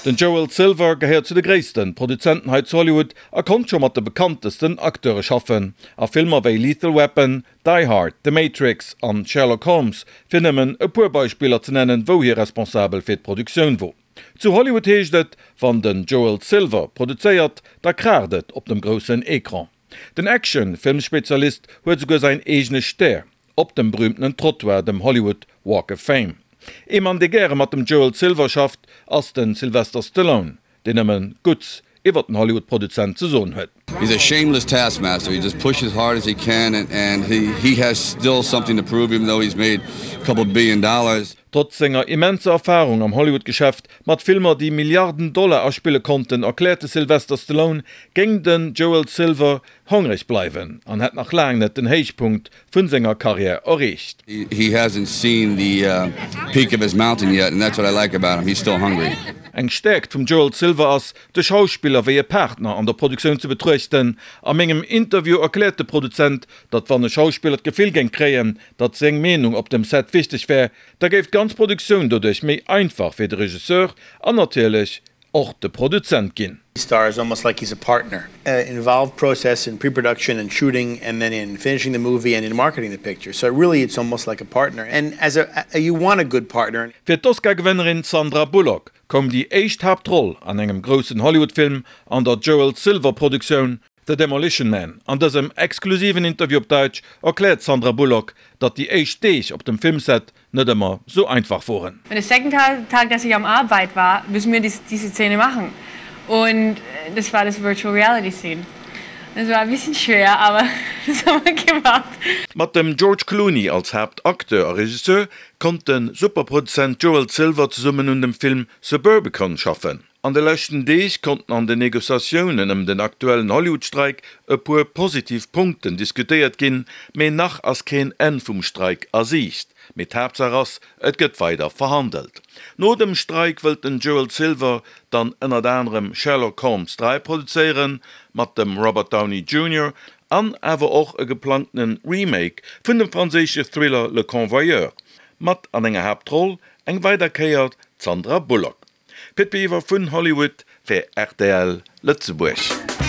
Den Joel Silver gehéiert zu de gréissten Produzenten hei zu Hollywood a konnt scho mat de bekanntesten Acteure schaffen a Filmer wéi Lethal Weapon, Die Hard, The Matrix an Sherlock Holmes, fir nëmmen e puer Beispiller ze nennen, wou hie responsabel fir d'Produktioun wor. Zu Hollywood heescht et, wann den Joel Silver produzéiert, da kraacht et op dem groussen Ecran. Den Action-Filmspezialist huet esouguer säin eegene Stär op dem berühmtenen Trottoir, dem Hollywood Walk of Fame. Ee Mann, dee gäre mat dem Joel Silver schafft, ass de Sylvester Stallone, deen nëmme Gutts iwwer den Hollywood-Produzent ze soen huet. He's a shameless taskmaster, he just pushes hard as he can and he has still something to prove even though he's made a couple billion dollars. Trotz senger immenser Erfarung am Hollywood-Geschäft, mat Filmer déi Milliarden Dollar aspille konnten, erkläert de Sylvester Stallone, géing den Joel Silver hongreg bleiwen an hätt nach laang net den Héichpunkt vun senger Karriär erreecht. He hasn't seen the peak of his mountain yet and that's what I like about him, he's still hungry. Eng Stäerkt vum Joel Silver ass, de Schauspiller wéi e Partner an der Produktioun ze betruechten. A mengem Interview erkläert de Produzent, datt wann e Schauspiller d'Gefill géing kréien, datt seng Meenung op dem Set wichteg wär, da géif d'ganz Produktioun doduerch méi einfach fir de Regisseur an natierlech och de Produzent ginn. Star is almost like he's a partner. Involved process in pre-production and shooting and then in finishing the movie and in marketing the picture. So really it's almost like a partner and as a you want a good partner. Fir d'Oscar-Gewënnerin Sandra Bullock koum déi éischt Haaptroll an engem groussen Hollywood-Film an der Joel Silver-Produktioun The Demolition Man. An dësem exklusiven Interview op Däitsch erkläert d'Sandra Bullock, datt déi éischt Deeg op dem Filmset net ëmmer sou einfach woren. Und der second Tag, dass ich am Arbeit war, müssen wir diese Szene machen. Und das war das Virtual Reality Scene. Das war ein bisschen schwer, aber das haben wir gemacht. Mat dem George Clooney als Haaptacteur a Regisseur konnt de Superproduzent Joel Silver zesummen un dem Film Suburbicon schaffen. An de leschten Deeg konnten an den Negociatiounen ëm den aktuellen Hollywood-Streik e puer positiv Punkten diskutéiert ginn, mee nach ass keen Enn vum Streik a Siicht. Mee d'Haaptsaach ass, et gëtt weider verhandelt. No dem Streik wëllt den Joel Silver dann ënnert anerem Sherlock Holmes 3 produzéieren, mat dem Robert Downey Junior, an awer och e geplangtene Remake vun dem franséische Thriller Le Convoyeur, mat an enger Haaptroll eng weider Kéier d'Sandra Bullock. Pit Biwer vun Hollywood fir rtl Lëtzebuerg.